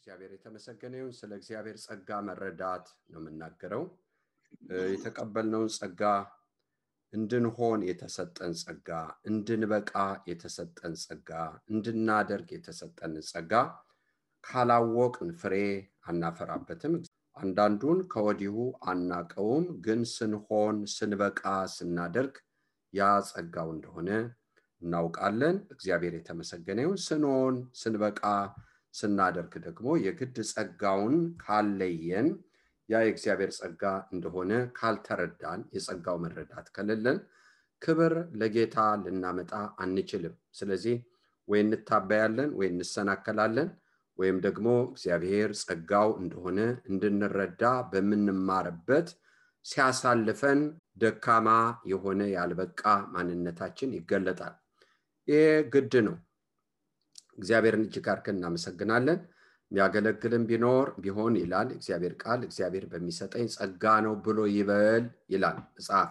እግዚአብሔር የተመሰገነ ይሁን። ስለ እግዚአብሔር ጸጋ መረዳት ነው የምናገረው። የተቀበልነውን ጸጋ እንድንሆን የተሰጠን ጸጋ፣ እንድንበቃ የተሰጠን ጸጋ፣ እንድናደርግ የተሰጠን ጸጋ ካላወቅን ፍሬ አናፈራበትም። አንዳንዱን ከወዲሁ አናቀውም፣ ግን ስንሆን ስንበቃ ስናደርግ ያ ጸጋው እንደሆነ እናውቃለን። እግዚአብሔር የተመሰገነ ይሁን። ስንሆን ስንበቃ ስናደርግ ደግሞ የግድ ጸጋውን ካለየን ያ የእግዚአብሔር ጸጋ እንደሆነ ካልተረዳን የጸጋው መረዳት ከሌለን ክብር ለጌታ ልናመጣ አንችልም። ስለዚህ ወይ እንታበያለን ወይ እንሰናከላለን ወይም ደግሞ እግዚአብሔር ጸጋው እንደሆነ እንድንረዳ በመንማርበት ሲያሳልፈን ደካማ የሆነ ያልበቃ ማንነታችን ይገለጣል። ይሄ ግድ ነው። እግዚአብሔርን እጅግ አድርገን እናመሰግናለን። የሚያገለግልን ቢሆን ይላል እግዚአብሔር ቃል፣ እግዚአብሔር በሚሰጠኝ ጸጋ ነው ብሎ ይበል ይላል መጽሐፍ።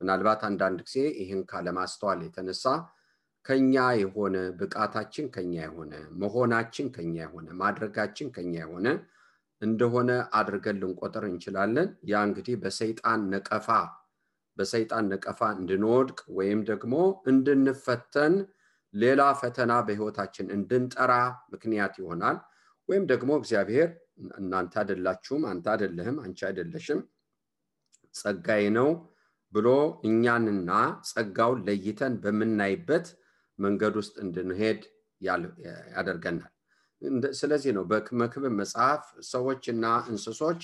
ምናልባት አንዳንድ ጊዜ ይህን ካለማስተዋል የተነሳ ከኛ የሆነ ብቃታችን ከኛ የሆነ መሆናችን ከኛ የሆነ ማድረጋችን ከኛ የሆነ እንደሆነ አድርገን ልንቆጥር እንችላለን። ያ እንግዲህ በሰይጣን ነቀፋ እንድንወድቅ ወይም ደግሞ እንድንፈተን ሌላ ፈተና በህይወታችን እንድንጠራ ምክንያት ይሆናል። ወይም ደግሞ እግዚአብሔር እናንተ አይደላችሁም፣ አንተ አይደለህም፣ አንቺ አይደለሽም፣ ጸጋዬ ነው ብሎ እኛንና ጸጋውን ለይተን በመናይበት መንገድ ውስጥ እንድንሄድ ያደርገናል። ስለዚህ ነው በመክብብ መጽሐፍ ሰዎችና እንስሶች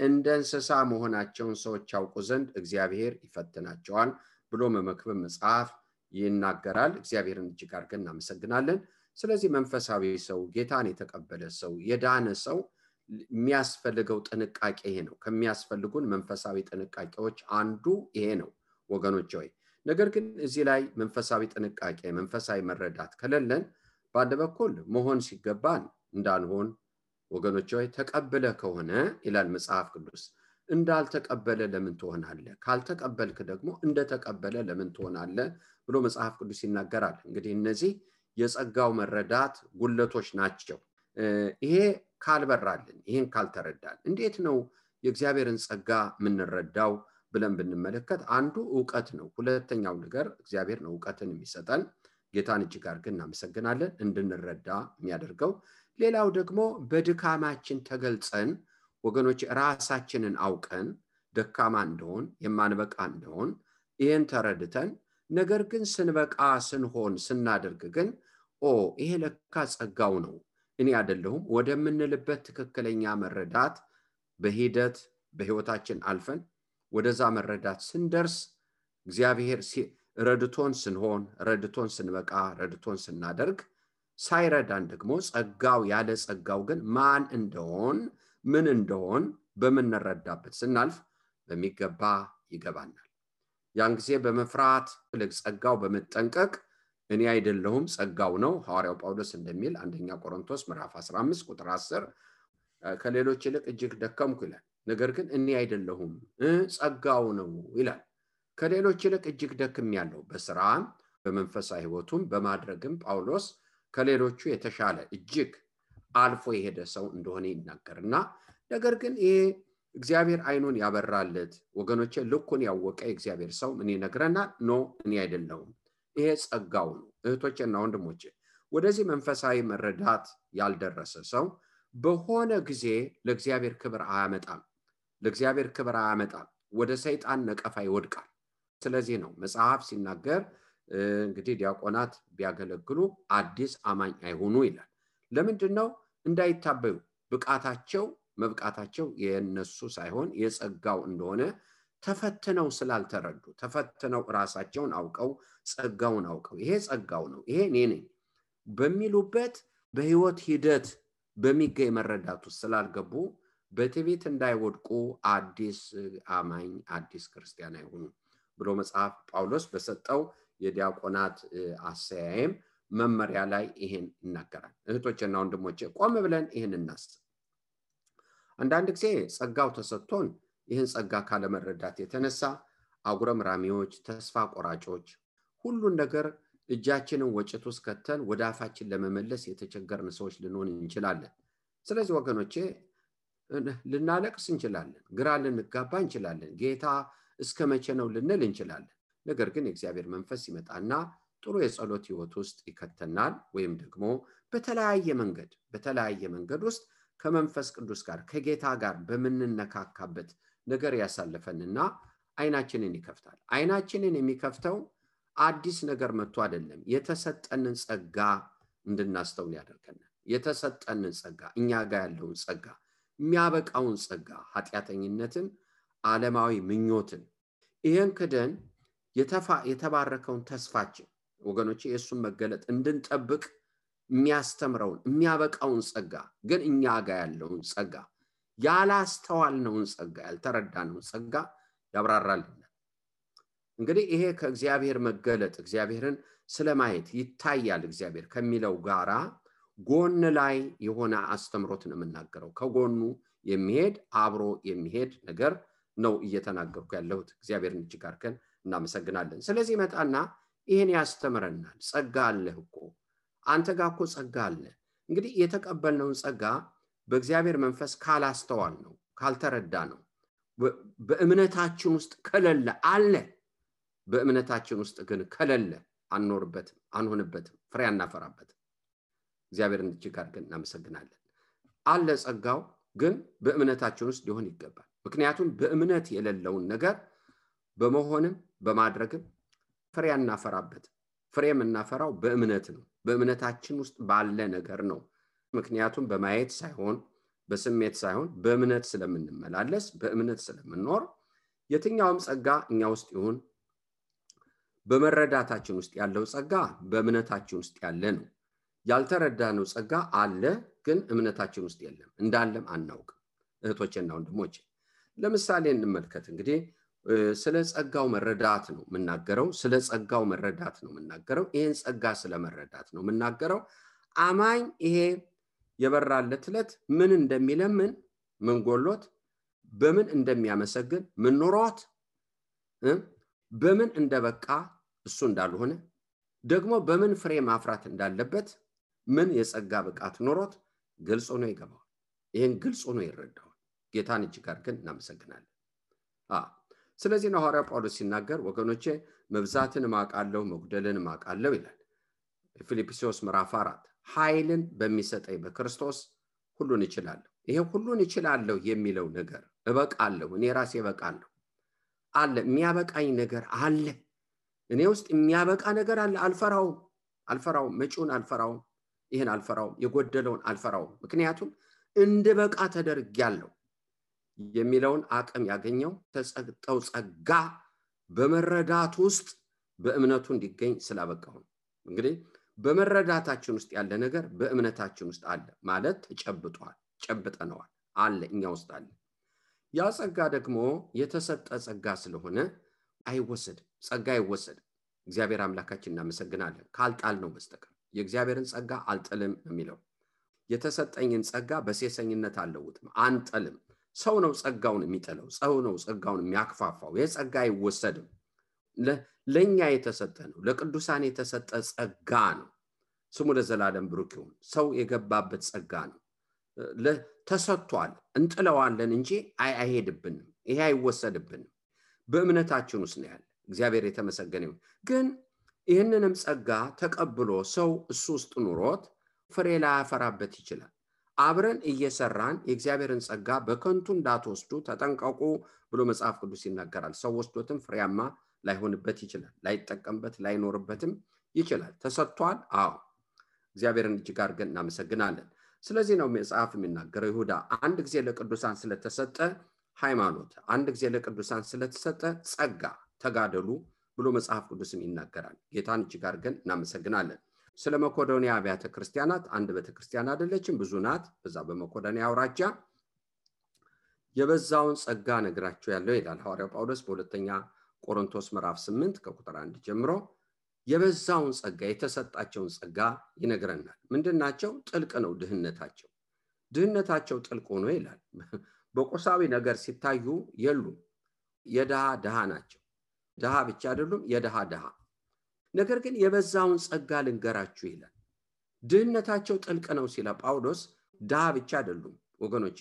እንደ እንስሳ መሆናቸውን ሰዎች ያውቁ ዘንድ እግዚአብሔር ይፈትናቸዋል ብሎ በመክብብ መጽሐፍ ይናገራል። እግዚአብሔርን እጅግ አድርገን እናመሰግናለን። ስለዚህ መንፈሳዊ ሰው፣ ጌታን የተቀበለ ሰው፣ የዳነ ሰው የሚያስፈልገው ጥንቃቄ ይሄ ነው። ከሚያስፈልጉን መንፈሳዊ ጥንቃቄዎች አንዱ ይሄ ነው ወገኖች ሆይ። ነገር ግን እዚህ ላይ መንፈሳዊ ጥንቃቄ፣ መንፈሳዊ መረዳት ከሌለን በአንድ በኩል መሆን ሲገባን እንዳንሆን ወገኖች ሆይ፣ ተቀበለ ከሆነ ይላል መጽሐፍ ቅዱስ እንዳልተቀበለ ለምን ትሆናለህ? ካልተቀበልክ ደግሞ እንደተቀበለ ለምን ትሆናለህ ብሎ መጽሐፍ ቅዱስ ይናገራል። እንግዲህ እነዚህ የጸጋው መረዳት ጉለቶች ናቸው። ይሄ ካልበራልን፣ ይሄን ካልተረዳን እንዴት ነው የእግዚአብሔርን ጸጋ የምንረዳው ብለን ብንመለከት አንዱ ዕውቀት ነው። ሁለተኛው ነገር እግዚአብሔር ነው ዕውቀትን የሚሰጠን። ጌታን እጅግ አድርገን እናመሰግናለን እንድንረዳ የሚያደርገው። ሌላው ደግሞ በድካማችን ተገልጸን ወገኖች ራሳችንን አውቀን ደካማ እንደሆን የማንበቃ እንደሆን ይሄን ተረድተን ነገር ግን ስንበቃ ስንሆን ስናደርግ ግን ይሄ ለካ ጸጋው ነው እኔ አይደለሁም ወደምንልበት ትክክለኛ መረዳት በሂደት በህይወታችን አልፈን ወደዛ መረዳት ስንደርስ እግዚአብሔር ረድቶን ስንሆን ረድቶን ስንበቃ ረድቶን ስናደርግ ሳይረዳን ደግሞ ጸጋው ያለ ጸጋው ግን ማን እንደሆን ምን እንደሆን በመነረዳበት ስናልፍ በሚገባ ይገባናል። ያን ጊዜ በመፍራት ለጸጋው በመጠንቀቅ እኔ አይደለሁም ጸጋው ነው ሐዋርያው ጳውሎስ እንደሚል አንደኛ ቆሮንቶስ ምዕራፍ 15 ቁጥር 10 ከሌሎች ይልቅ እጅግ ደከምኩ ይላል። ነገር ግን እኔ አይደለሁም ጸጋው ነው ይላል። ከሌሎች ይልቅ እጅግ ደክሜያለሁ በስራም በመንፈሳዊ ህይወቱም በማድረግም ጳውሎስ ከሌሎቹ የተሻለ እጅግ አልፎ የሄደ ሰው እንደሆነ ይናገርና ነገር ግን ይሄ እግዚአብሔር አይኑን ያበራለት ወገኖቼ ልኩን ያወቀ እግዚአብሔር ሰው ምን ይነግረናል? እኔ አይደለሁም ይሄ ጸጋው ነው። እህቶቼና ወንድሞቼ ወደዚህ መንፈሳዊ መረዳት ያልደረሰ ሰው በሆነ ጊዜ ለእግዚአብሔር ክብር አያመጣም፣ ወደ ሰይጣን ነቀፋ ይወድቃል። ስለዚህ ነው መጽሐፍ ሲናገር እንግዲህ ዲያቆናት ቢያገለግሉ አዲስ አማኝ አይሆኑ ይላል። ለምንድነው? እንዳይታበዩ መብቃታቸው የነሱ ሳይሆን የጸጋው እንደሆነ ተፈትነው ስላልተረዱ ተፈትነው ራሳቸውን አውቀው ጸጋውን አውቀው ይሄ ጸጋው ነው ይሄ እኔ ነኝ በሚሉበት በህይወት ሂደት በሚገኝ መረዳቱ ስላልገቡ በትዕቢት እንዳይወድቁ አዲስ አማኝ አዲስ ክርስቲያን አይሆኑ ብሎ መጽሐፍ ጳውሎስ በሰጠው የዲያቆናት አሰያየም መመሪያ ላይ ይሄን ይናገራል። እህቶቼና ወንድሞቼ ቆም ብለን ይሄን እናስብ። አንዳንድ ጊዜ ጸጋው ተሰጥቶን ይሄን ጸጋ ካለመረዳት የተነሳ አጉረምራሚዎች፣ ተስፋ ቆራጮች፣ ሁሉን ነገር እጃችንን ወጭት ውስጥ ከተን ወደ አፋችን ለመመለስ የተቸገርን ሰዎች ልንሆን እንችላለን። ስለዚህ ወገኖቼ ልናለቅስ እንችላለን፣ ግራ ልንጋባ እንችላለን፣ ጌታ እስከ መቼ ነው ልንል እንችላለን። ነገር ግን የእግዚአብሔር መንፈስ ይመጣና ጥሩ የጸሎት ህይወት ውስጥ ይከተናል። ወይም ደግሞ በተለያየ መንገድ ውስጥ ከመንፈስ ቅዱስ ጋር ከጌታ ጋር በመንነካካበት ነገር ያሳልፈንና አይናችንን ይከፍታል። አይናችንን የሚከፍተው አዲስ ነገር መጥቶ አይደለም፣ የተሰጠንን ጸጋ እንድናስተውል ያደርገናል። የተሰጠንን ጸጋ፣ እኛ ጋር ያለውን ጸጋ፣ የሚያበቃውን ጸጋ፣ ኃጢአተኝነትን፣ ዓለማዊ ምኞትን፣ ይሄን ክደን የተባረከውን ተስፋችን ወገኖቼ የሱን መገለጥ እንድንጠብቅ የሚያስተምረውን የሚያበቃውን ጸጋ፣ ግን እኛ ጋር ያለውን ጸጋ፣ ያላስተዋልነውን ጸጋ፣ ያልተረዳነውን ጸጋ ያብራራልናል። እንግዲህ ይሄ ከእግዚአብሔር መገለጥ እግዚአብሔርን ስለማየት ይታያል እግዚአብሔር ከሚለው ጋራ ጎን ላይ የሆነ አስተምሮት ነው የምናገረው። ከጎኑ የሚሄድ አብሮ የሚሄድ ነገር ነው እየተናገርኩ ያለሁት። እግዚአብሔርን እጅግ አድርገን እናመሰግናለን። ስለዚህ መጣና ይሄን ያስተምረናል። ጸጋ አለህ እኮ አንተ ጋር እኮ ጸጋ አለ። እንግዲህ የተቀበልነውን ጸጋ በእግዚአብሔር መንፈስ ካላስተዋል ነው ካልተረዳ ነው በእምነታችን ውስጥ ከሌለ አለ። በእምነታችን ውስጥ ግን ከሌለ አንኖርበትም፣ አንሆንበትም፣ ፍሬ አናፈራበትም። እግዚአብሔርን እጅግ አድርገን እናመሰግናለን። አለ ጸጋው፣ ግን በእምነታችን ውስጥ ሊሆን ይገባል። ምክንያቱም በእምነት የሌለውን ነገር በመሆንም በማድረግም ፍሬ አናፈራበትም። ፍሬ የምናፈራው በእምነት ነው፣ በእምነታችን ውስጥ ባለ ነገር ነው። ምክንያቱም በማየት ሳይሆን በስሜት ሳይሆን በእምነት ስለምንመላለስ በእምነት ስለምንኖር የትኛውም ጸጋ እኛ ውስጥ ይሁን በመረዳታችን ውስጥ ያለው ጸጋ በእምነታችን ውስጥ ያለ ነው። ያልተረዳነው ጸጋ አለ፣ ግን እምነታችን ውስጥ የለም፣ እንዳለም አናውቅም። እህቶቼና ወንድሞቼ ለምሳሌ እንመልከት። እንግዲህ ስለ ጸጋው መረዳት ነው የምናገረው። ስለ ጸጋው መረዳት ነው የምናገረው። ይሄን ጸጋ ስለመረዳት ነው የምናገረው። አማኝ ይሄ የበራለት ዕለት ምን እንደሚለምን፣ ምን ጎሎት፣ በምን እንደሚያመሰግን፣ ምን ኖሮት፣ በምን እንደበቃ እሱ እንዳልሆነ፣ ደግሞ በምን ፍሬ ማፍራት እንዳለበት፣ ምን የጸጋ ብቃት ኖሮት ግልጽ ሆኖ ይገባዋል። ይሄን ግልጽ ሆኖ ይረዳዋል። ጌታን እጅግ አድርገን እናመሰግናለን። ስለዚህ ነው ሐዋርያው ጳውሎስ ሲናገር ወገኖቼ መብዛትን ማቃለው መጉደልን ማቃለው ይላል። ፊልጵስዩስ ምዕራፍ 4 ኃይልን በሚሰጠኝ በክርስቶስ ሁሉን እችላለሁ። ይሄ ሁሉን እችላለሁ የሚለው ነገር እበቃለሁ፣ እኔ ራሴ እበቃለሁ አለ። የሚያበቃኝ ነገር አለ፣ እኔ ውስጥ የሚያበቃ ነገር አለ። አልፈራውም፣ መጪውን አልፈራውም፣ ይሄን አልፈራውም፣ የጎደለውን አልፈራውም። ምክንያቱም እንደበቃ ተደርጌያለሁ የሚለውን አቅም ያገኘው ተጸግጠው ጸጋ በመረዳት ውስጥ በእምነቱ እንዲገኝ ስላበቃው። እንግዲህ በመረዳታችን ውስጥ ያለ ነገር በእምነታችን ውስጥ አለ ማለት ተጨብጧል፣ ጨብጠነዋል፣ አለ፣ እኛ ውስጥ አለ። ያ ጸጋ ደግሞ የተሰጠ ጸጋ ስለሆነ አይወሰድም፣ ጸጋ አይወሰድም። እግዚአብሔር አምላካችን እናመሰግናለን ካልጣል ነው በስተቀር። የእግዚአብሔርን ጸጋ አልጥልም የሚለው የተሰጠኝን ጸጋ በሴሰኝነት አልለውጥም፣ አንጥልም። ሰው ነው ጸጋውን የሚጠለው፣ ሰው ነው ጸጋውን የሚያክፋፋው። የጸጋ አይወሰድም፣ ለኛ የተሰጠ ነው፣ ለቅዱሳን የተሰጠ ጸጋ ነው። ስሙ ለዘላለም ብሩክ ይሁን። ሰው የገባበት ጸጋ ነው፣ ተሰጥቷል። እንጥለዋለን እንጂ አይሄድብንም፣ ይሄ አይወሰድብንም። በእምነታችን ውስጥ ነው ያለ። እግዚአብሔር የተመሰገነ ይሁን። ግን ይህንንም ጸጋ ተቀብሎ ሰው እሱ ውስጥ ኑሮት ፍሬ ላያፈራበት ይችላል። አብረን እየሰራን የእግዚአብሔርን ጸጋ በከንቱ እንዳትወስዱ ተጠንቀቁ ብሎ መጽሐፍ ቅዱስ ይናገራል። ሰው ወስዶትም ፍሬያማ ላይሆንበት ይችላል፣ ላይጠቀምበት ላይኖርበትም ይችላል። ተሰጥቷል። አዎ እግዚአብሔርን እጅግ አድርገን እናመሰግናለን። ስለዚህ ነው መጽሐፍ የሚናገረው ይሁዳ አንድ ጊዜ ለቅዱሳን ስለተሰጠ ሃይማኖት፣ አንድ ጊዜ ለቅዱሳን ስለተሰጠ ጸጋ ተጋደሉ ብሎ መጽሐፍ ቅዱስም ይናገራል። ጌታን እጅግ አድርገን እናመሰግናለን። ስለ መቄዶንያ አብያተ ክርስቲያናት አንድ ቤተክርስቲያን አይደለችም፣ ብዙ ናት። በዛ በመቄዶንያ አውራጃ የበዛውን ጸጋ ነግራቸው ያለው ይላል ሐዋርያው ጳውሎስ በሁለተኛ ቆሮንቶስ ምዕራፍ 8 ከቁጥር 1 ጀምሮ የበዛውን ጸጋ የተሰጣቸውን ጸጋ ይነግረናል። ምንድናቸው? ጥልቅ ነው ድህነታቸው ጥልቅ ሆኖ ይላል። በቁሳዊ ነገር ሲታዩ የሉም፣ የድሃ ድሃ ናቸው። ድሃ ብቻ አይደሉም፣ የድሃ ድሃ። ነገር ግን የበዛውን ጸጋ ልንገራችሁ ይላል። ድህነታቸው ጥልቅ ነው ሲል ጳውሎስ ድሃ ብቻ አይደሉም ወገኖቼ፣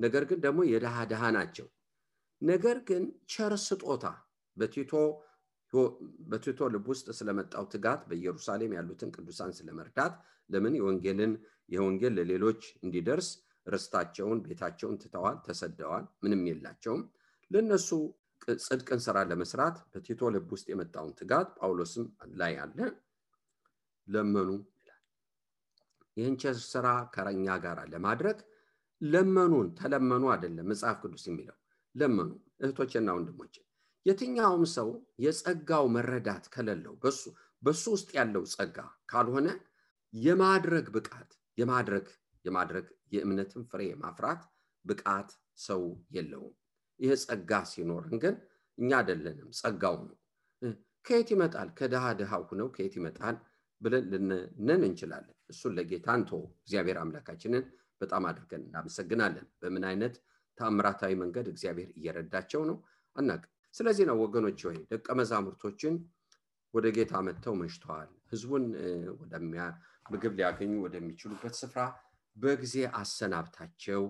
ነገር ግን ደግሞ የድሃ ናቸው። ነገር ግን ቸር ስጦታ በቲቶ ልብ ውስጥ ስለመጣው ትጋት በኢየሩሳሌም ያሉትን ቅዱሳን ስለመርዳት ለምን የወንጌል ለሌሎች እንዲደርስ ርስታቸውን ቤታቸውን ትተዋል፣ ተሰደዋል፣ ምንም የላቸውም። ለነሱ ጽድቅን ስራ ለመስራት በቲቶ ልብ ውስጥ የመጣውን ትጋት ጳውሎስም ላይ አለ ለመኑ ይላል። ይህን ቸር ስራ ከኛ ጋር ለማድረግ ለመኑን፣ ተለመኑ አይደለም መጽሐፍ ቅዱስ የሚለው ለመኑ። እህቶቼና ወንድሞቼ የትኛውም ሰው የጸጋው መረዳት ከሌለው በሱ ውስጥ ያለው ጸጋ ካልሆነ የማድረግ ብቃት የማድረግ የእምነትን ፍሬ ማፍራት ብቃት ሰው የለውም። ይሄ ጸጋ ሲኖርን ግን እኛ አይደለንም ጸጋው ነው። ከየት ይመጣል? ከድሃው ነው ከየት ይመጣል ብለን ልንነን እንችላለን። እሱን ለጌታ እንተው። እግዚአብሔር አምላካችንን በጣም አድርገን እናመሰግናለን። በምን አይነት ታምራታዊ መንገድ እግዚአብሔር እየረዳቸው ነው አናውቅም። ስለዚህ ነው ወገኖች ሆይ ደቀ መዛሙርቶችን ወደ ጌታ መጥተው መሽተዋል፣ ህዝቡን ምግብ ሊያገኙ ወደሚችሉበት ስፍራ በጊዜ አሰናብታቸው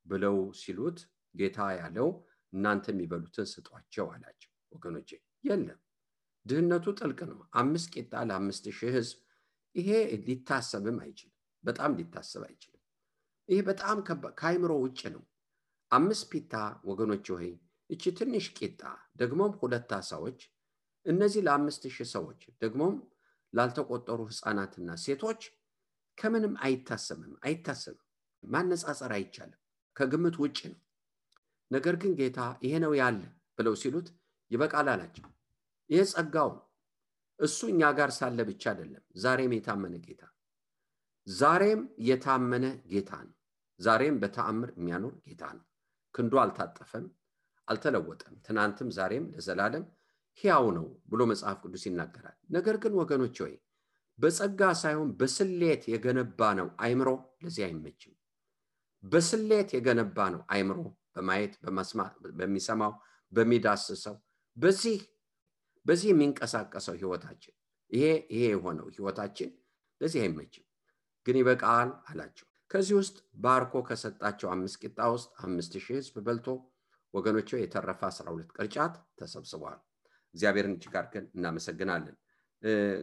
ብለው ሲሉት ጌታ ያለው እናንተ የሚበሉትን ስጧቸው አላቸው። ወገኖቼ የለም፣ ድህነቱ ጥልቅ ነው። 5 ቂጣ ለ5000 ህዝብ፣ ይሄ ሊታሰብም አይችልም፣ በጣም ሊታሰብ አይችልም። ይሄ በጣም ከአይምሮ ውጭ ነው። 5 ፒታ ወገኖች ሆይ እቺ ትንሽ ቂጣ ደግሞም 2 ዓሳዎች፣ እነዚህ ለ5000 ሰዎች ደግሞም ላልተቆጠሩ ህፃናትና ሴቶች ከምንም አይታሰብም። ማነጻጸር አይቻልም፣ ከግምት ውጭ ነው። ነገር ግን ጌታ ይሄ ነው ያለ ብለው ሲሉት ይበቃል አላቸው። ይሄ ጸጋው እሱ እኛ ጋር ሳለ ብቻ አይደለም፣ ዛሬም የታመነ ጌታ፣ ዛሬም የታመነ ጌታ ነው። ዛሬም በተአምር የሚያኖር ጌታ ነው። ክንዱ አልታጠፈም፣ አልተለወጠም። ትናንትም ዛሬም ለዘላለም ሕያው ነው ብሎ መጽሐፍ ቅዱስ ይናገራል። ነገር ግን ወገኖች ሆይ በጸጋ ሳይሆን በስሌት የገነባ ነው አይምሮ ለዚህ አይመችም። በስሌት የገነባ ነው አይምሮ በማየት በመስማት በሚሰማው በሚዳስሰው በዚህ የሚንቀሳቀሰው ህይወታችን ይሄ የሆነው ህይወታችን ለዚህ አይመችም። ግን ይበቃል አላቸው። ከዚህ ውስጥ ባርኮ ከሰጣቸው 5 ቂጣ ውስጥ 5000 ህዝብ በልቶ ወገኖቼ የተረፈ 12 ቅርጫት ተሰብስበዋል። እግዚአብሔርን እጅግ አድርገን እናመሰግናለን።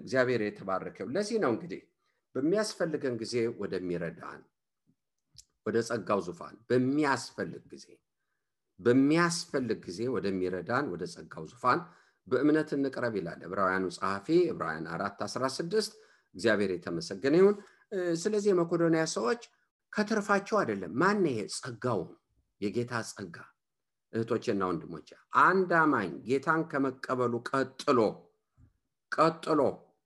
እግዚአብሔር የተባረከው ለዚህ ነው። እንግዲህ በሚያስፈልገን ጊዜ ወደሚረዳን ወደ ጸጋው ዙፋን በሚያስፈልግ ጊዜ ወደሚረዳን ወደ ጸጋው ዙፋን በእምነት እንቅረብ ይላል ዕብራውያኑ ጸሐፊ ዕብራውያን 4:16። እግዚአብሔር የተመሰገነ ይሁን። ስለዚህ የመቄዶንያ ሰዎች ከትርፋቸው አይደለም። ማን ይሄ ጸጋው የጌታ ጸጋ እህቶቼና ወንድሞቼ፣ አንድ አማኝ ጌታን ከመቀበሉ ቀጥሎ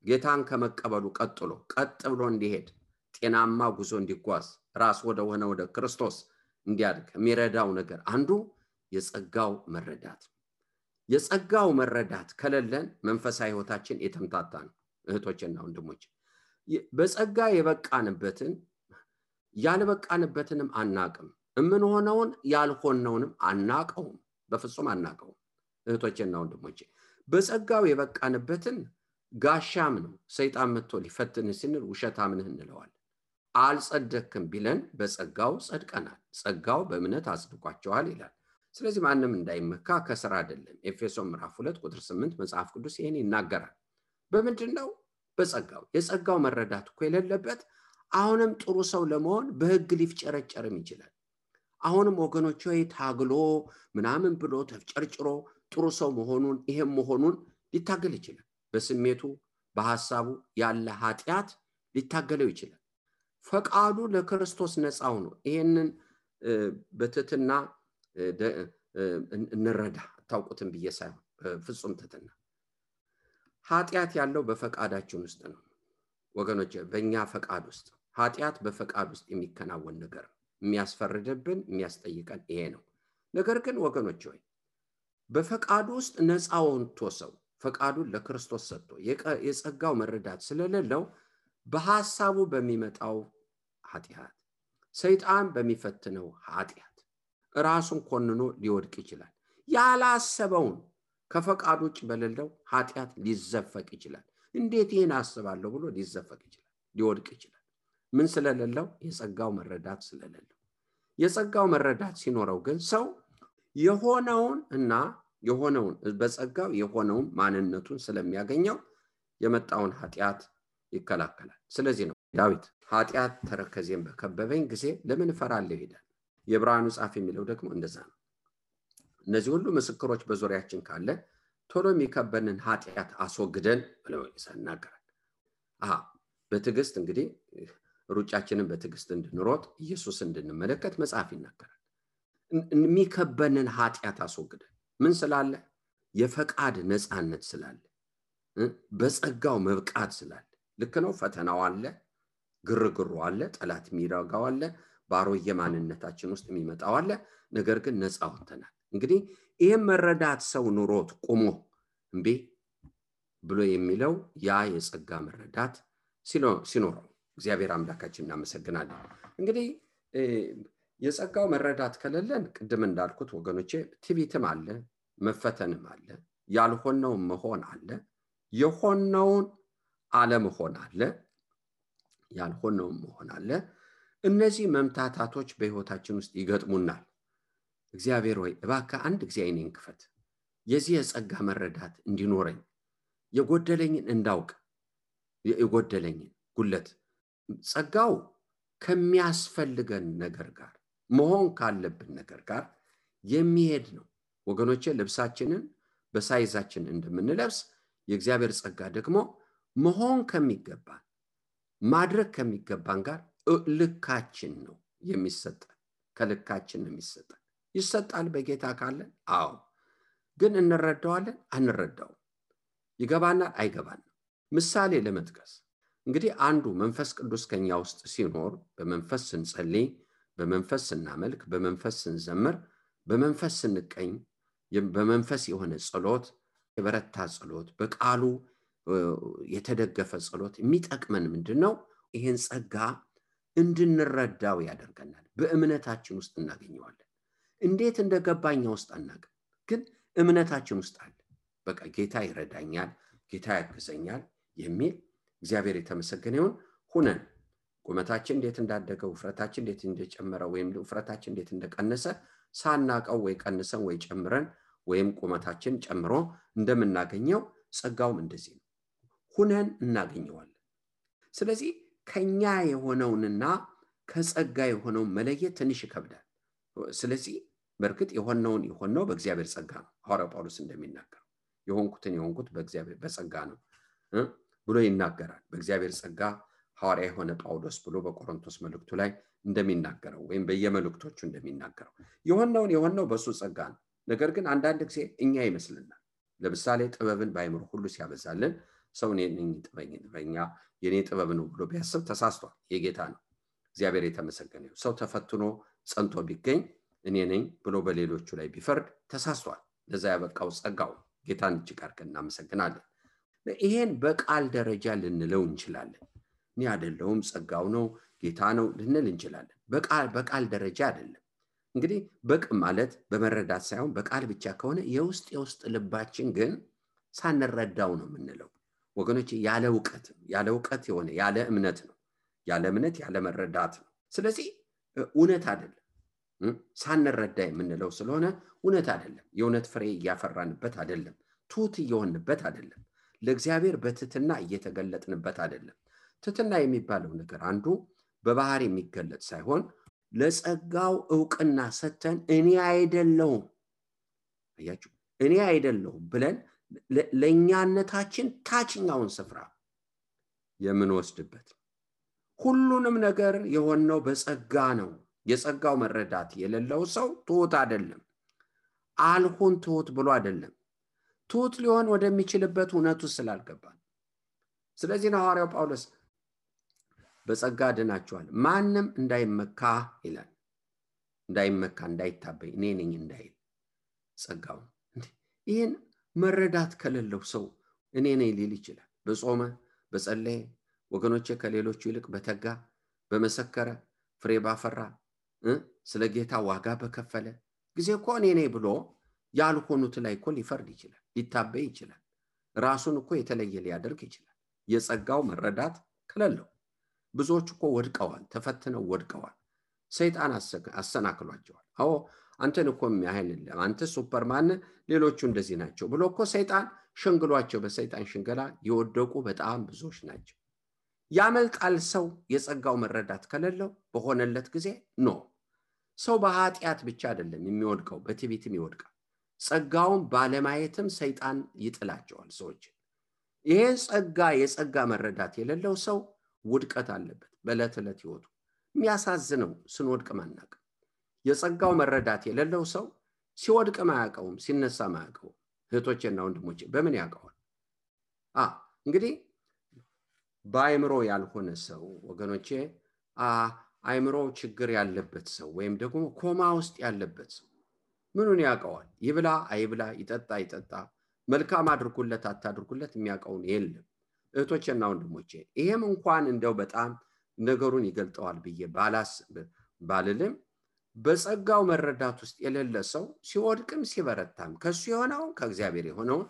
ጌታን ከመቀበሉ ቀጥሎ ቀጥ ብሎ እንዲሄድ ጤናማ ጉዞ እንዲጓዝ ራስ ወደ ክርስቶስ እንዲያድግ የሚረዳው ነገር አንዱ የጸጋው መረዳት። የጸጋው መረዳት ከሌለን መንፈሳዊ ህይወታችን የተምታታ ነው። እህቶቼና ወንድሞቼ በጸጋ የበቃንበትን ያልበቃንበትንም አናቅም፣ እምንሆነውን ያልሆነውንም አናቀውም፣ በፍጹም አናቀውም። እህቶቼና ወንድሞቼ በጸጋው የበቃንበትን ጋሻም ነው ሰይጣን መጥቶ ሊፈትን ሲል ውሸታም ነህ እንለዋለን። አልጸደቅም ቢለን በጸጋው ጸድቀናል፣ ጸጋው በእምነት አጽድቋቸዋል ይላል። ስለዚህ ማንም እንዳይመካ ከሥራ አይደለም። ኤፌሶን ምዕራፍ 2:8 መጽሐፍ ቅዱስ ይሄን ይናገራል። በምንድነው? በጸጋው። የጸጋው መረዳት እኮ የሌለበት አሁንም ጥሩ ሰው ለመሆን በህግ ሊፍጨረጨርም ይችላል። አሁንም ወገኖች ሆይ ታግሎ ምናምን ብሎ ተፍጨርጭሮ ጥሩ ሰው መሆኑን ሊታገል ይችላል። በስሜቱ በሐሳቡ ያለ ኃጢያት ሊታገለው ይችላል። ፈቃዱ ለክርስቶስ ነፃው ነው። ይሄንን በትህትና እንረዳ። ታውቁትን ብዬ ሳይሆን ፍጹም ትህትና። ኃጢያት ያለው በፈቃዳችን ውስጥ ነው ወገኖች፣ በእኛ ፈቃድ ውስጥ። ኃጢያት በፈቃድ ውስጥ የሚከናወን ነገር የሚያስፈርድብን የሚያስጠይቀን ይሄ ነው። ነገር ግን ወገኖች ሆይ በፈቃዱ ውስጥ ነፃውን ተወሰው ፈቃዱን ለክርስቶስ ሰጥቶ የጸጋው መረዳት ስለሌለው በሐሳቡ በሚመጣው ኃጢያት ሰይጣን በሚፈትነው ኃጢያት ራሱን ኮንኖ ሊወድቅ ይችላል። ያላሰበውን ከፈቃዱ ውጭ በሌለው ኃጢያት ሊዘፈቅ ይችላል። እንዴት ይሄን አስባለሁ ብሎ ሊዘፈቅ ይችላል ሊወድቅ ይችላል ምን ስለሌለው የጸጋው መረዳት ስለሌለው የጸጋው መረዳት ሲኖረው ግን ሰው የሆነውን በጸጋው የሆነውን ማንነቱን ስለሚያገኘው የመጣውን ኃጢአት ይከላከላል ስለዚህ ነው ዳዊት ኃጢአት ተረከዜን በከበበኝ ጊዜ ለምን ፈራለሁ ይላል የዕብራውያኑ ጻፍ የሚለው ደግሞ እንደዛ ነው እነዚህ ሁሉ ምስክሮች በዙሪያችን ካለ ቶሎ የሚከበንን ኃጢአት አስወግደን ብለው ይናገራል በትዕግስት እንግዲህ ሩጫችንን በትዕግስት እንድንሮጥ ኢየሱስ እንድንመለከት መጽሐፍ ይናገራል የሚከበንን ኃጢአት አስወግደን ምን ስላለ የፈቃድ ነፃነት ስላለ በጸጋው መብቃት ስላለ ልክ ነው ፈተናው አለ ግርግሩ አለ ጠላት የሚራጋው አለ ባሮየ ማንነታችን ውስጥ የሚመጣው አለ ነገር ግን ነፃ ወጥተናል እንግዲህ ይሄን መረዳት ሰው ኑሮት ቆሞ እንዴ ብሎ የሚለው ያ የጸጋ መረዳት ሲኖረው እግዚአብሔር አምላካችን እናመሰግናለን እንግዲህ የጸጋው መረዳት ከሌለን ቅድም እንዳልኩት ወገኖቼ ትዕቢትም አለ መፈተንም አለ ያልሆነው መሆን አለ የሆነውን አለመሆን አለ ያልሆነው መሆን አለ እነዚህ መምታታቶች በህይወታችን ውስጥ ይገጥሙናል እግዚአብሔር ሆይ እባክህ አንድ ጊዜ አይኔን ክፈት የዚህ የጸጋ መረዳት እንዲኖረኝ የጎደለኝን እንዳውቅ የጎደለኝን ጉለት ጸጋው ከሚያስፈልገን ነገር ጋር መሆን ካለብን ነገር ጋር የሚሄድ ነው ወገኖቼ ልብሳችንን በሳይዛችን እንደምንለብስ የእግዚአብሔር ጸጋ ደግሞ መሆን ከሚገባን ማድረግ ከሚገባን ጋር ልካችን ነው የሚሰጠን ከልካችን ነው የሚሰጠን ይሰጣል በጌታ ካለ አዎ ግን እንረዳዋለን አንረዳው ይገባናል አይገባንም ምሳሌ ለመጥቀስ እንግዲህ አንዱ መንፈስ ቅዱስ ከኛ ውስጥ ሲኖር በመንፈስ ስንጸልይ በመንፈስ ስናመልክ በመንፈስ ስንዘምር በመንፈስ ስንቀኝ በመንፈስ የሆነ ጸሎት የበረታ ጸሎት በቃሉ የተደገፈ ጸሎት የሚጠቅመን ምንድነው ይሄን ጸጋ እንድንረዳው ያደርገናል በእምነታችን ውስጥ እናገኘዋለን እንዴት እንደገባኛ ውስጥ አናውቅም ግን እምነታችን ውስጥ አለ በቃ ጌታ ይረዳኛል ጌታ ያግዘኛል የሚል እግዚአብሔር የተመሰገነ ይሁን ሁነን ቁመታችን እንዴት እንዳደገ ውፍረታችን እንዴት እንደጨመረ ወይም ውፍረታችን እንዴት እንደቀነሰ ሳናቀው ወይ ቀንሰን ወይ ጨምረን ወይም ቁመታችን ጨምሮ እንደምናገኘው ጸጋውም እንደዚህ ነው ሁነን እናገኘዋለን ስለዚህ ከኛ የሆነውንና ከጸጋ የሆነው መለየት ትንሽ ይከብዳል ስለዚህ በርግጥ የሆነው በእግዚአብሔር ጸጋ ነው ሐዋርያው ጳውሎስ እንደሚናገር የሆንኩት በእግዚአብሔር በጸጋ ነው ብሎ ይናገራል በእግዚአብሔር ጸጋ ሐዋርያ የሆነ ጳውሎስ ብሎ በቆሮንቶስ መልእክቱ ላይ እንደሚናገረው ወይም በየመልእክቶቹ እንደሚናገረው የሆነው በሱ ጸጋ ነው ነገር ግን አንዳንድ ጊዜ እኛ ይመስልናል ለምሳሌ ጥበብን ባይምር ሁሉ ሲያበዛልን ሰው ነኝ ጥበበኛ የኔ ጥበብ ነው ብሎ ቢያስብ ተሳስቷል የጌታ ነው እግዚአብሔር የተመሰገነ ይሁን ሰው ተፈትኖ ጸንቶ ቢገኝ እኔ ነኝ ብሎ በሌሎቹ ላይ ቢፈርድ ተሳስቷል ለዛ ያበቃው ጸጋው ጌታን እጅግ አድርገን እናመሰግናለን ይሄን በቃል ደረጃ ልንለው እንችላለን እኔ አይደለሁም ጸጋው ነው ጌታ ነው ልንል እንችላለን በቃል ደረጃ አይደለም እንግዲህ በቅ ማለት በመረዳት ሳይሆን በቃል ብቻ ከሆነ የውስጥ ልባችን ግን ሳንረዳው ነው የምንለው ወገኖች ያለ ዕውቀት የሆነ ያለ እምነት ነው ያለ እምነት ያለ መረዳት ነው ስለዚህ እውነት አይደለም ሳንረዳ የምንለው ስለሆነ እውነት አይደለም የእውነት ፍሬ ያፈራንበት አይደለም ቱት እየሆንበት አይደለም ለእግዚአብሔር በትትና እየተገለጥንበት አይደለም ትትና የሚባለው ነገር አንዱ በባህር የሚገለጥ ሳይሆን ለጸጋው ዕውቅና ሰተን እኔ አይደለሁም አያችሁ እኔ አይደለሁም ብለን ለኛነታችን ታችኛውን ስፍራ የምንወስድበት ሁሉንም ነገር የሆነው በጸጋ ነው የጸጋው መረዳት የሌለው ሰው ትሁት አይደለም አልሆን ትሁት ብሎ አይደለም ትሁት ሊሆን ወደሚችልበት እውነቱ ስላልገባ ስለዚህ ነው ሐዋርያው ጳውሎስ በጸጋ ድናችኋል ማንም እንዳይመካ ይላል እንዳይመካ እንዳይታበይ እኔ ነኝ እንዳይል ጸጋው ይሄን መረዳት ከሌለው ሰው እኔ ነኝ ሊል ይችላል በጾመ በጸለየ ወገኖቼ ከሌሎቹ ይልቅ በተጋ በመሰከረ ፍሬ ባፈራ ስለ ጌታ ዋጋ በከፈለ ጊዜ እኮ እኔ ነኝ ብሎ ያልሆኑት ላይ እኮ ሊፈርድ ይችላል ሊታበይ ይችላል ራሱን እኮ የተለየ ሊያደርግ ይችላል የጸጋው መረዳት ከሌለው ብዙዎች እኮ ወድቀዋል፣ ተፈትነው ወድቀዋል። ሰይጣን አሰናክሏቸዋል። አዎ አንተን እኮ የሚያህል አንተ ሱፐርማን ሌሎቹ እንደዚህ ናቸው ብሎ እኮ ሰይጣን ሸንግሏቸው በሰይጣን ሽንገላ የወደቁ በጣም ብዙዎች ናቸው። ያመልጣል ሰው የጸጋው መረዳት ከሌለው በሆነለት ጊዜ ኖ ሰው በኃጢአት ብቻ አይደለም የሚወድቀው በትዕቢትም ይወድቃል። ጸጋውን ባለማየትም ሰይጣን ይጥላቸዋል ሰዎች። ይሄን የጸጋ መረዳት የሌለው ሰው ውድቀት አለበት በዕለት ዕለት ህይወቱ። የሚያሳዝነው ስንወድቅ ማናቅ የጸጋው መረዳት የሌለው ሰው ሲወድቅ ማያውቀውም ሲነሳ ማያውቀውም። እህቶቼና ወንድሞቼ በምን ያውቀዋል? እንግዲህ በአይምሮ ያልሆነ ሰው ወገኖቼ አይምሮ ችግር ያለበት ሰው ወይም ደግሞ ኮማ ውስጥ ያለበት ሰው ምኑን ያውቀዋል? ይብላ አይብላ ይጠጣ አይጠጣ መልካም አድርጉለት አታድርጉለት የሚያውቀውን የለም። እህቶቼና ወንድሞቼ ይሄም እንኳን እንደው በጣም ነገሩን ይገልጠዋል ብዬ ባልልም በጸጋው መረዳት ውስጥ የሌለ ሰው ሲወድቅም ሲበረታም ከሱ የሆነው ከእግዚአብሔር የሆነው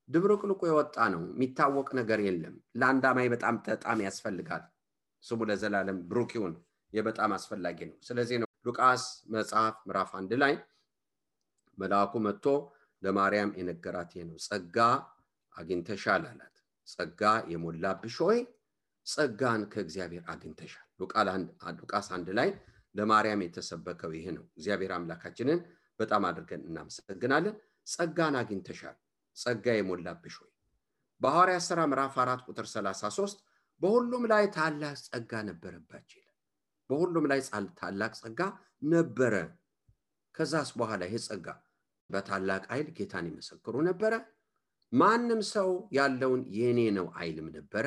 ድብርቅልቁ የወጣ ነው። የሚታወቅ ነገር የለም። ለአንድ አማኝ በጣም ያስፈልጋል። ስሙ ለዘላለም ብሩክ ይሁን። የበጣም አስፈላጊ ነው። ስለዚህ ነው ሉቃስ መጽሐፍ ምዕራፍ 1 ላይ መልአኩ መጥቶ ለማርያም የነገራት ይሄ ነው። ጸጋ አግኝተሻል አላት። ጸጋ የሞላብሽ ሆይ ጸጋን ከእግዚአብሔር አግኝተሻል። ሉቃስ 1 ላይ ለማርያም የተሰበከው ይሄ ነው። እግዚአብሔር አምላካችንን በጣም አድርገን እናመሰግናለን። ጸጋን አግኝተሻል፣ ጸጋ የሞላብሽ ሆይ። በሐዋርያት ሥራ ምዕራፍ 4 ቁጥር 33 በሁሉም ላይ ታላቅ ጸጋ ነበረባቸው ይላል። በሁሉም ላይ ታላቅ ጸጋ ነበረ። ከዛስ በኋላ ይሄ ጸጋ በታላቅ ኃይል ጌታን ይመሰክሩ ነበረ። ማንም ሰው ያለውን የኔ ነው አይልም ነበረ።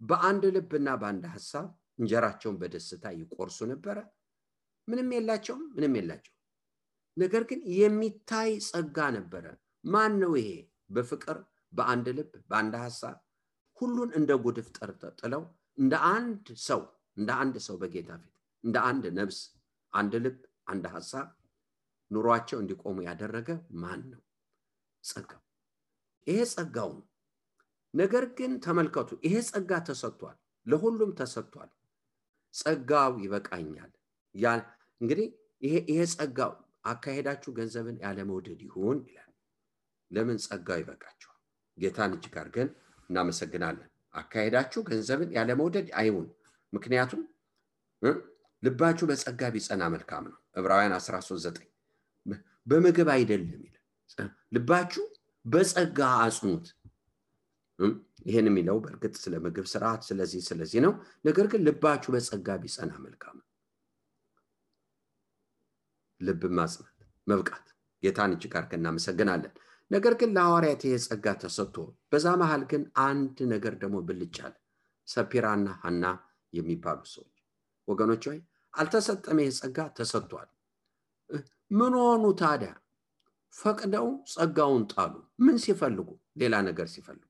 በአንድ ልብና በአንድ ሐሳብ እንጀራቸውን በደስታ ይቆርሱ ነበረ። ምንም የላቸውም። ነገር ግን የሚታይ ጸጋ ነበረ። ማን ነው ይሄ? በፍቅር በአንድ ልብ በአንድ ሐሳብ ሁሉን እንደ ጉድፍ ጥለው እንደ አንድ ሰው በጌታ ፊት እንደ አንድ ነፍስ አንድ ልብ አንድ ሐሳብ ኑሯቸው እንዲቆሙ ያደረገ ማን ነው? ጸጋው። ይሄ ጸጋው ነው። ነገር ግን ተመልከቱ፣ ይሄ ጸጋ ተሰጥቷል፣ ለሁሉም ተሰጥቷል። ጸጋው ይበቃኛል። እንግዲህ ይሄ ጸጋው አካሄዳችሁ ገንዘብን ያለ መውደድ ይሁን ይላል። ለምን? ጸጋው ይበቃችኋል። ጌታን እጅግ አድርገን እናመሰግናለን። አካሄዳችሁ ገንዘብን ያለ መውደድ አይሁን፣ ምክንያቱም ልባችሁ በጸጋ ቢጸና መልካም ነው። ዕብራውያን 13:9 በምግብ አይደለም ይላል። ልባችሁ በጸጋ አጽኑት። ይሄን የሚለው በእርግጥ ስለ ምግብ ስርዓት ስለዚህ ነው። ነገር ግን ልባችሁ በጸጋ ቢጸና መልካም ነው። ልብ ማጽናት መብቃት ጌታን እጅግ አድርገን እናመሰግናለን። ነገር ግን ለሐዋርያት ይሄ ጸጋ ተሰጥቶ በዛ መሃል ግን አንድ ነገር ደግሞ ብልጫል። ሰጲራና ሐና የሚባሉ ሰዎች ወገኖች ሆይ አልተሰጠም። ይሄ ጸጋ ተሰጥቷል። ምን ሆኑ ታዲያ? ፈቅደው ጸጋውን ጣሉ። ምን ሲፈልጉ? ሌላ ነገር ሲፈልጉ።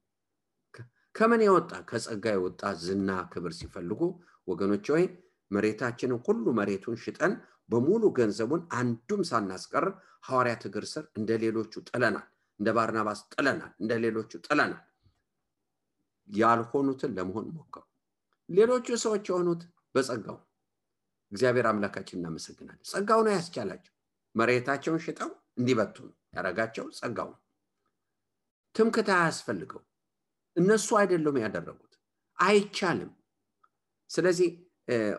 ከምን የወጣ? ከጸጋ የወጣ ዝና ክብር ሲፈልጉ ወገኖች ሆይ መሬታችንን ሁሉ መሬቱን ሽጠን በሙሉ ገንዘቡን አንዱም ሳናስቀር ሐዋርያት እግር ስር እንደሌሎቹ ጥለናል። እንደ ባርናባስ ጥለናል። እንደሌሎቹ ጥለናል። ያልሆኑትን ለመሆን ሞከሩ። ሌሎቹ ሰዎች የሆኑት በጸጋው እግዚአብሔር አምላካችን እናመሰግናለን። ጸጋው ነው ያስቻላቸው። መሬታቸውን ሽጠው እንዲበቱን ያረጋቸው ጸጋው። ትምክህት አያስፈልገው። እነሱ አይደሉም ያደረጉት። አይቻልም። ስለዚህ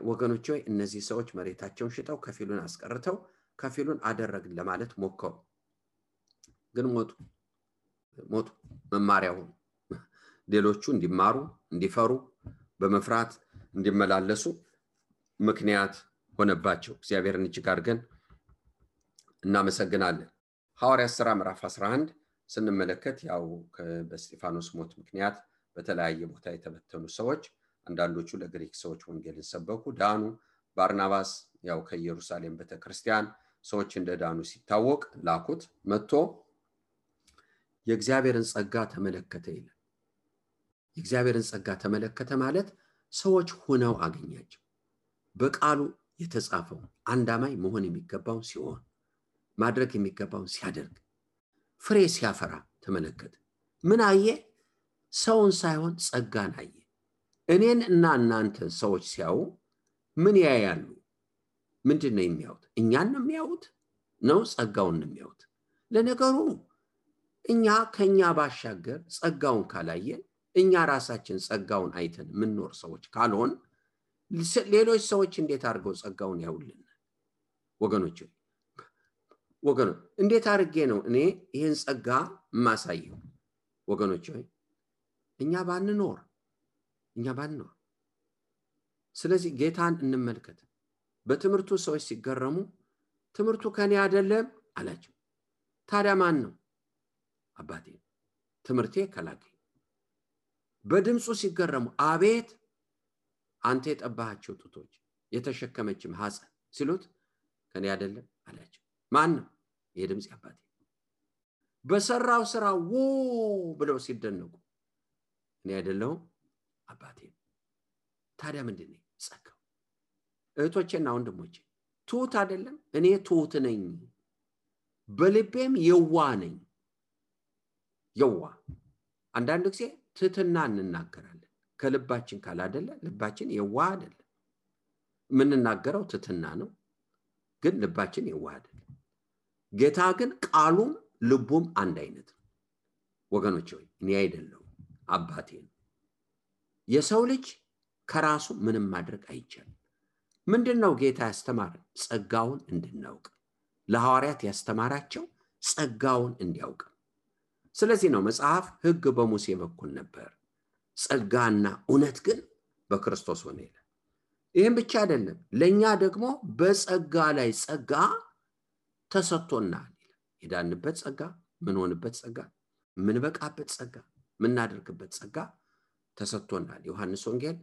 ወገኖች ሆይ እነዚህ ሰዎች መሬታቸውን ሽጠው ከፊሉን አስቀርተው ከፊሉን አደረግን ለማለት ሞከሩ። ግን ሞቱ። መማሪያው ሌሎቹ እንዲማሩ እንዲፈሩ በመፍራት እንዲመላለሱ ምክንያት ሆነባቸው። እግዚአብሔርን እጅግ አድርገን እናመሰግናለን። ሐዋርያት ሥራ ምዕራፍ 11 ስንመለከት ያው በስጢፋኖስ ሞት ምክንያት በተለያየ ቦታ የተበተኑ ሰዎች አንዳንዶቹ ለግሪክ ሰዎች ወንጌልን ሰበኩ፣ ዳኑ። ባርናባስ ያው ከኢየሩሳሌም ቤተክርስቲያን ሰዎች እንደዳኑ ሲታወቅ ላኩት። መጥቶ የእግዚአብሔርን ጸጋ ተመለከተ ይላል። የእግዚአብሔርን ጸጋ ተመለከተ ማለት ሰዎች ሆነው አገኛቸው። በቃሉ የተጻፈው አንድ አማኝ መሆን የሚገባው ሲሆን ማድረግ የሚገባው ሲያደርግ ፍሬ ሲያፈራ ተመለከተ። ምን አየ? ሰውን ሳይሆን ጸጋን አየ። እኔን እና እናንተን ሰዎች ሲያዩ ምን ያያሉ? ምንድነው የሚያዩት? እኛን ነው የሚያዩት ነው ጸጋውን ነው የሚያዩት? ለነገሩ እኛ ከኛ ባሻገር ጸጋውን ካላየን እኛ ራሳችን ጸጋውን አይተን ምንኖር ሰዎች ካልሆን ሌሎች ሰዎች እንዴት አድርገው ጸጋውን ያውልን? ወገኖች እንዴት አድርጌ ነው እኔ ይሄን ጸጋ ማሳየው? ወገኖች እኛ ባንኖር ስለዚህ ጌታን እንመልከት። በትምህርቱ ሰዎች ሲገረሙ ትምህርቱ ከኔ አይደለም አላቸው። ታዲያ ማን ነው? አባቴ ትምህርቴ ከላከኝ። በድምጹ ሲገረሙ አቤት አንተ የጠባሃቸው ጡቶች የተሸከመችም ሐፀን ሲሉት ከኔ አይደለም አላቸው። ማን ነው? የድምጽ አባቴ። በሰራው ስራ ብለው ሲደነቁ እኔ አይደለሁም አባቴ። ታዲያ ምንድነው ጸጋው? እህቶቼና ወንድሞቼ ትሁት አይደለም? እኔ ትሁት ነኝ፣ በልቤም የዋህ ነኝ። የዋህ አንዳንድ ጊዜ ትህትና እንናገራለን ከልባችን ካላደለ ልባችን የዋህ አይደለም። ምንናገረው ትህትና ነው ግን ልባችን የዋህ አይደለም። ጌታ ግን ቃሉም ልቡም አንድ አይነት ነው። ወገኖች ሆይ እኔ አይደለሁም አባቴ ነው። የሰው ልጅ ከራሱ ምንም ማድረግ አይቻልም። ምንድነው ጌታ ያስተማረን? ጸጋውን እንድናውቅ። ለሐዋርያት ያስተማራቸው ጸጋውን እንዲያውቅ። ስለዚህ ነው መጽሐፍ ሕግ በሙሴ በኩል ነበር፣ ጸጋና እውነት ግን በክርስቶስ ሆነ ይላል። ይሄን ብቻ አይደለም፣ ለኛ ደግሞ በጸጋ ላይ ጸጋ ተሰጥቶናል ይላል። የዳንበት ጸጋ፣ ምን ሆንበት ጸጋ፣ ምን በቃበት ጸጋ፣ ምን እናደርግበት ጸጋ ተሰጥቶናል። ዮሐንስ ወንጌል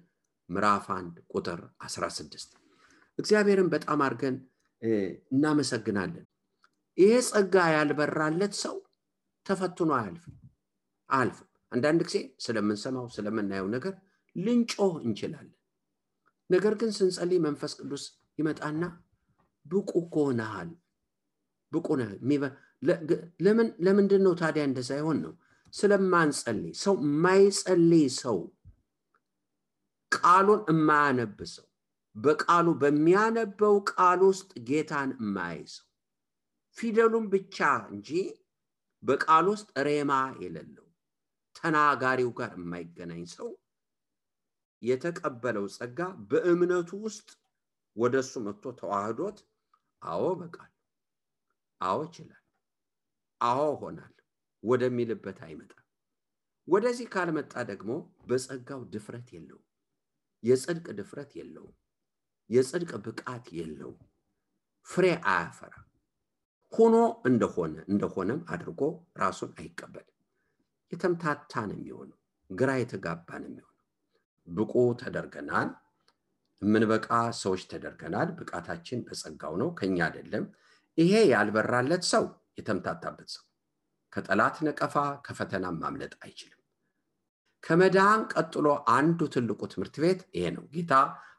ምዕራፍ 1 ቁጥር 16። እግዚአብሔርን በጣም አርገን እናመሰግናለን። ይሄ ጸጋ ያልበራለት ሰው ተፈትኖ አያልፍም። አንዳንድ ጊዜ ስለምንሰማው ስለምናየው ነገር ልንጮህ እንችላለን። ነገር ግን ስንጸልይ መንፈስ ቅዱስ ይመጣና ብቁ ሆነሃል፣ ብቁ ነህ። ለምንድን ነው ታዲያ እንደዛ ይሆን ነው? ስለማንጸልይ። ሰው ማይጸልይ ሰው፣ ቃሉን የማያነብ ሰው፣ በቃሉ በሚያነበው ቃል ውስጥ ጌታን የማያይሰው፣ ፊደሉን ብቻ እንጂ በቃል ውስጥ ሬማ የሌለው ተናጋሪው ጋር የማይገናኝ ሰው የተቀበለው ጸጋ በእምነቱ ውስጥ ወደሱ መጥቶ ተዋህዶት አዎ በቃል አዎ ይችላል አዎ ሆናል ወደሚልበት አይመጣም። ወደዚህ ካልመጣ ደግሞ በጸጋው ድፍረት የለው፣ የጽድቅ ድፍረት የለው፣ የጽድቅ ብቃት የለው፣ ፍሬ አያፈራ። ሆኖ እንደሆነም አድርጎ ራሱን አይቀበልም። የተምታታ ነው የሚሆነው፣ ግራ የተጋባ ነው የሚሆነው። ብቁ ተደርገናል፣ ምንበቃ ሰዎች ተደርገናል። ብቃታችን በጸጋው ነው ከኛ አይደለም። ይሄ ያልበራለት ሰው የተምታታበት ሰው ከጠላት ነቀፋ ከፈተና ማምለጥ አይችልም። ከመዳን ቀጥሎ አንዱ ትልቁ ትምህርት ቤት ይሄ ነው። ጌታ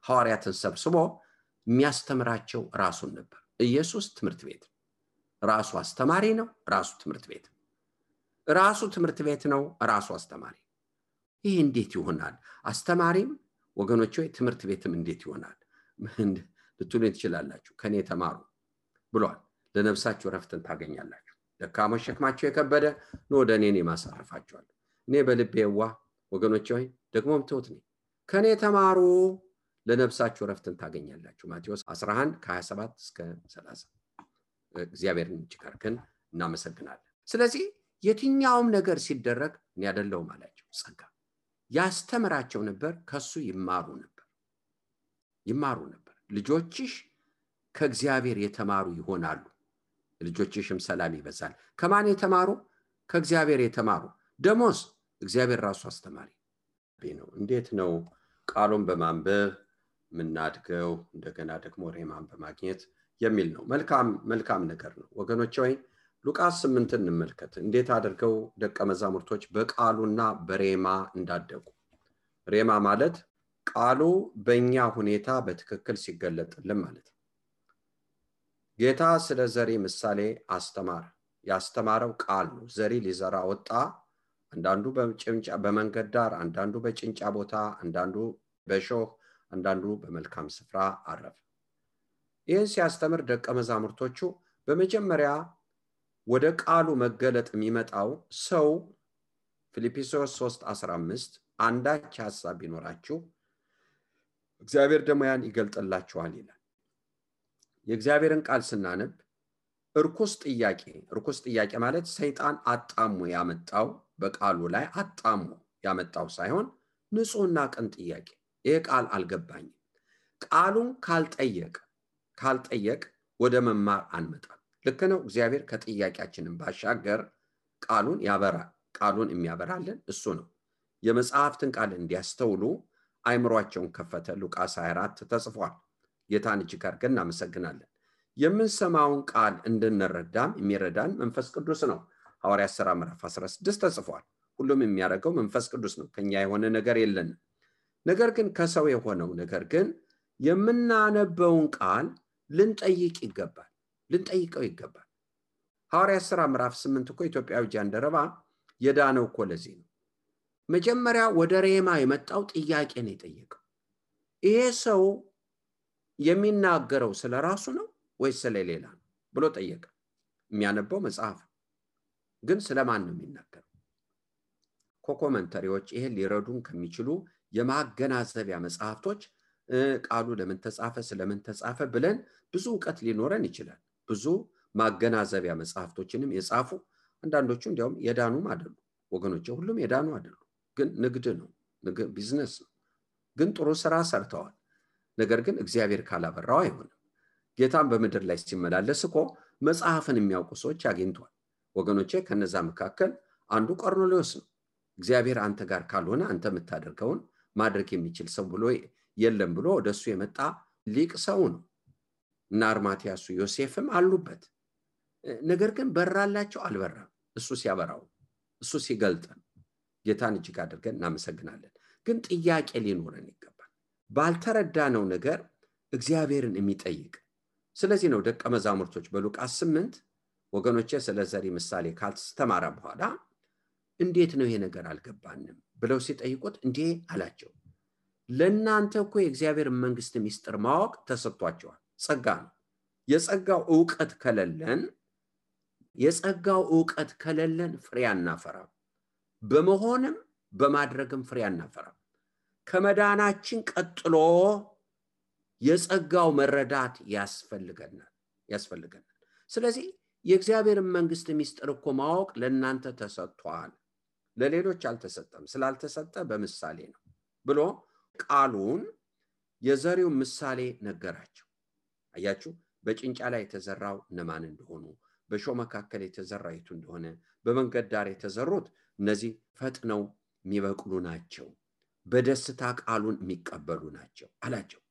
ሐዋርያትን ሰብስቦ የሚያስተምራቸው ራሱን ነበር። ኢየሱስ ትምህርት ቤት ራሱ አስተማሪ ነው፣ ራሱ ትምህርት ቤት ራሱ ትምህርት ቤት ነው፣ ራሱ አስተማሪ። ይሄ እንዴት ይሆናል? አስተማሪም ወገኖች ሆይ ትምህርት ቤትም እንዴት ይሆናል ልትሉ ትችላላችሁ። ከኔ ተማሩ ብሏል። ለነፍሳችሁ ረፍትን ታገኛላችሁ። ደካሞች ሸክማቸው የከበደ ነው ወደ እኔ ማሳረፋቸዋል። እኔ በልቤ የዋህ ወገኖች ሆይ ደግሞም ትሁት ነኝ። ከኔ ተማሩ ለነፍሳችሁ ረፍትን ታገኛላችሁ። ማቴዎስ 11 ከ27 እስከ 30። እግዚአብሔርን ይችካርከን እናመሰግናለን። ስለዚህ የትኛውም ነገር ሲደረግ እኔ አይደለሁም አላቸው። ጸጋ ያስተምራቸው ነበር፣ ከሱ ይማሩ ነበር። ልጆችሽ ከእግዚአብሔር የተማሩ ይሆናሉ፣ ልጆችሽም ሰላም ይበዛል። ከማን የተማሩ? ከእግዚአብሔር የተማሩ። ደሞስ እግዚአብሔር ራሱ አስተማሪ ነው። እንዴት ነው ቃሉን በማንበብ ምናድገው? እንደገና ደግሞ ሬማን በማግኘት የሚል ነው። መልካም ነገር ነው ወገኖች ሆይ ሉቃስ 8 እንመልከት። እንዴት አድርገው ደቀ መዛሙርቶች በቃሉና በሬማ እንዳደጉ። ሬማ ማለት ቃሉ በእኛ ሁኔታ በትክክል ሲገለጥልን ማለት ነው። ጌታ ስለ ዘሪ ምሳሌ አስተማረ። ያስተማረው ቃል ነው። ዘሪ ሊዘራ ወጣ አንዳንዱ በጭንጫ በመንገድ ዳር፣ አንዳንዱ በጭንጫ ቦታ፣ አንዳንዱ በሾህ፣ አንዳንዱ በመልካም ስፍራ አረፈ። ይህን ሲያስተምር ደቀ መዛሙርቶቹ በመጀመሪያ ወደ ቃሉ መገለጥ የሚመጣው ሰው ፊልጵስዩስ 3:15 አንዳች ሐሳብ ቢኖራችሁ እግዚአብሔር ደግሞ ያን ይገልጥላችኋል ይላል። የእግዚአብሔርን ቃል ስናነብ ርኩስ ጥያቄ ማለት ሰይጣን አጣሞ ያመጣው በቃሉ ላይ አጣሞ ያመጣው ሳይሆን ንጹህና ቅን ጥያቄ፣ ይሄ ቃል አልገባኝም። ቃሉን ካልጠየቅ ወደ መማር አንመጣም። ልክ ነው። እግዚአብሔር ከጥያቄያችንን ባሻገር ቃሉን ያበራል። ቃሉን የሚያበራልን እሱ ነው። የመጽሐፍትን ቃል እንዲያስተውሉ አይምሯቸውን ከፈተ። ሉቃስ 24 ተጽፏል። ጌታን እጅግ አድርገን እናመሰግናለን። የምንሰማውን ቃል እንድንረዳም የሚረዳን መንፈስ ቅዱስ ነው። ሐዋርያት ሥራ ምዕራፍ 16 ተጽፏል። ሁሉም የሚያደርገው መንፈስ ቅዱስ ነው። ከኛ የሆነ ነገር የለንም። ነገር ግን ከሰው የሆነው ነገር ግን የምናነበውን ቃል ልንጠይቀው ይገባል። ሐዋርያት ሥራ ምዕራፍ 8 እኮ ኢትዮጵያዊ ጃንደረባ የዳነው እኮ ለዚህ ነው። መጀመሪያ ወደ ሬማ የመጣው ጥያቄ ነው የጠየቀው። ይሄ ሰው የሚናገረው ስለ ራሱ ነው ወይስ ስለሌላ ነው ብሎ ጠየቀ። የሚያነበው መጽሐፍ ግን ስለማን ነው የሚናገረው? ኮመንተሪዎች ይሄን ሊረዱን ከሚችሉ የማገናዘቢያ መጽሐፍቶች ቃሉ ለምን ተጻፈ፣ ስለምን ተጻፈ ብለን ብዙ ዕውቀት ሊኖረን ይችላል። ብዙ ማገናዘቢያ መጽሐፍቶችንም የጻፉ አንዳንዶቹ እንዲያውም የዳኑም አይደሉ ወገኖች፣ ሁሉም የዳኑ አይደሉ። ግን ንግድ ነው፣ ቢዝነስ ነው። ግን ጥሩ ስራ ሰርተዋል። ነገር ግን እግዚአብሔር ካላበራው አይሆንም። ጌታን በምድር ላይ ሲመላለስ እኮ መጽሐፍን የሚያውቁ ሰዎች አግኝቷል ወገኖቼ። ከነዛ መካከል አንዱ ቆርኔሌዎስ ነው። እግዚአብሔር አንተ ጋር ካልሆነ አንተ የምታደርገውን ማድረግ የሚችል ሰው ብሎ የለም ብሎ ወደሱ የመጣ ሊቅ ሰው ነው። እና አርማትያሱ ዮሴፍም አሉበት። ነገር ግን በራላቸው አልበራም። እሱ ሲያበራው፣ እሱ ሲገልጠን ጌታን እጅግ አድርገን እናመሰግናለን። ግን ጥያቄ ሊኖረን ይገባል፣ ባልተረዳነው ነገር እግዚአብሔርን የሚጠይቅ። ስለዚህ ነው ደቀ መዛሙርቶች በሉቃስ 8 ወገኖቼ ስለ ዘሪ ምሳሌ ካልተስተማረ በኋላ እንዴት ነው ይሄ ነገር አልገባንም ብለው ሲጠይቁት እንዴ አላቸው፣ ለእናንተ እኮ የእግዚአብሔር መንግስት ሚስጥር ማወቅ ተሰጥቷቸዋል። ጸጋ ነው። የጸጋው ዕውቀት ከሌለን ፍሬ አናፈራም። በመሆንም በማድረግም ፍሬ አናፈራም። ከመዳናችን ቀጥሎ የጸጋው መረዳት ያስፈልገናል። ስለዚህ የእግዚአብሔር መንግስት ሚስጥር እኮ ማወቅ ለእናንተ ተሰጥቷል፣ ለሌሎች አልተሰጠም። ስላልተሰጠ በምሳሌ ነው ብሎ ቃሉን የዘሪው ምሳሌ ነገራቸው። አያችሁ፣ በጭንጫ ላይ የተዘራው እነማን እንደሆኑ፣ በሾህ መካከል የተዘራው የቱ እንደሆነ፣ በመንገድ ዳር የተዘሩት እነዚህ ፈጥነው የሚበቅሉ ናቸው፣ በደስታ ቃሉን የሚቀበሉ ናቸው አላቸው።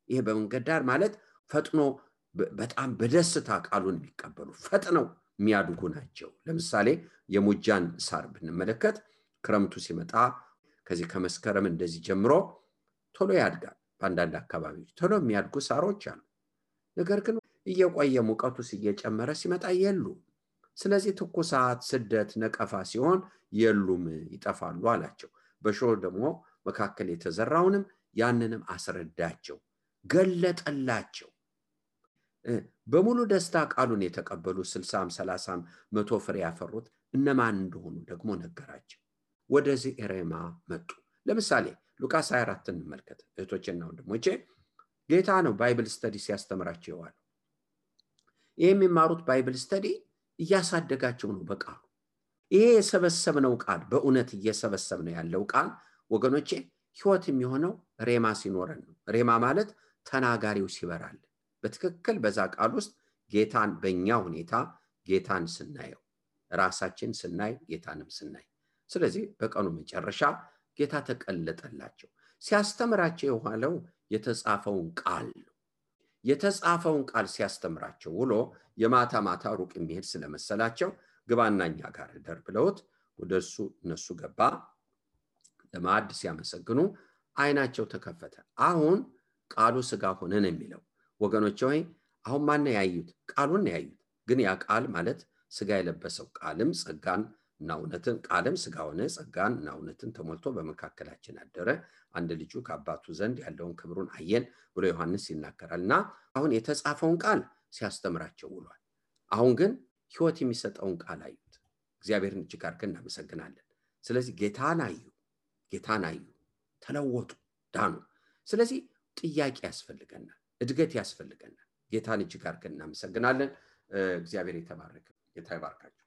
ይሄ በመንገድ ዳር ማለት ፈጥኖ በጣም በደስታ ቃሉን የሚቀበሉ ፈጥነው የሚያድጉ ናቸው። ለምሳሌ የሙጃን ሳር ብንመለከት ክረምቱ ሲመጣ ከዚህ ከመስከረም እንደዚህ ጀምሮ ቶሎ ያድጋል። በአንዳንድ አካባቢዎች ቶሎ የሚያድጉ ሳሮች አሉ። ነገር ግን እየቆየ ሙቀቱ እየጨመረ ሲመጣ የሉም። ስለዚህ ትኩሳት፣ ስደት፣ ነቀፋ ሲሆን የሉም፣ ይጠፋሉ አላቸው። በሾህ ደግሞ መካከል የተዘራውንም ያንንም አስረዳቸው፣ ገለጠላቸው። በሙሉ ደስታ ቃሉን የተቀበሉ 60፣ 30፣ 100 ፍሬ ያፈሩት እነማን እንደሆኑ ደግሞ ነገራቸው። ወደዚህ ሬማ መጡ። ለምሳሌ ሉቃስ 24 እንመልከት እህቶቼና ወንድሞቼ። ጌታ ነው ባይብል ስተዲ ሲያስተምራቸው ይዋል። የሚማሩት ባይብል ስተዲ እያሳደጋቸው ነው በቃሉ። ይሄ የሰበሰብነው ቃል በእውነት እየሰበሰብነው ያለው ቃል ወገኖቼ ህይወት የሚሆነው ሬማ ሲኖረን ነው። ሬማ ማለት ተናጋሪው ሲበራል በትክክል በዛ ቃል ውስጥ ጌታን በእኛ ሁኔታ ጌታን ስናየው፣ ራሳችን ስናይ፣ ጌታንም ስናይ። ስለዚህ በቀኑ መጨረሻ ጌታ ተቀለጠላቸው። ሲያስተምራቸው የዋለው የተጻፈውን ቃል ነው። የተጻፈውን ቃል ሲያስተምራቸው ውሎ የማታ ማታ ሩቅ የሚሄድ ስለመሰላቸው ግባና እኛ ጋር እደር ብለውት ወደሱ እነሱ ገባ። ለማዕድ ሲያመሰግኑ አይናቸው ተከፈተ። አሁን ቃሉ ሥጋ ሆነ ነው የሚለው ወገኖቼ። ሆይ አሁን ማን ያዩት? ቃሉን ያዩት። ግን ያ ቃል ማለት ሥጋ የለበሰው ቃልም ጸጋን እና እውነትን ቃልም ሥጋ ሆነ ጸጋንና እውነትን ተሞልቶ በመካከላችን አደረ አንድ ልጁ ከአባቱ ዘንድ ያለውን ክብሩን አየን ብሎ ዮሐንስ ይናገራልና አሁን የተጻፈውን ቃል ሲያስተምራቸው ውሏል። አሁን ግን ሕይወት የሚሰጠውን ቃል አዩት። እግዚአብሔርን እጅግ አድርገን እናመሰግናለን። ስለዚህ ጌታን አዩ፣ ተለወጡ፣ ዳኑ። ስለዚህ ጥያቄ ያስፈልገናል፣ እድገት ያስፈልገናል። ጌታን እጅግ አድርገን እናመሰግናለን። እግዚአብሔር የተባረከ ጌታ ይባርካችሁ።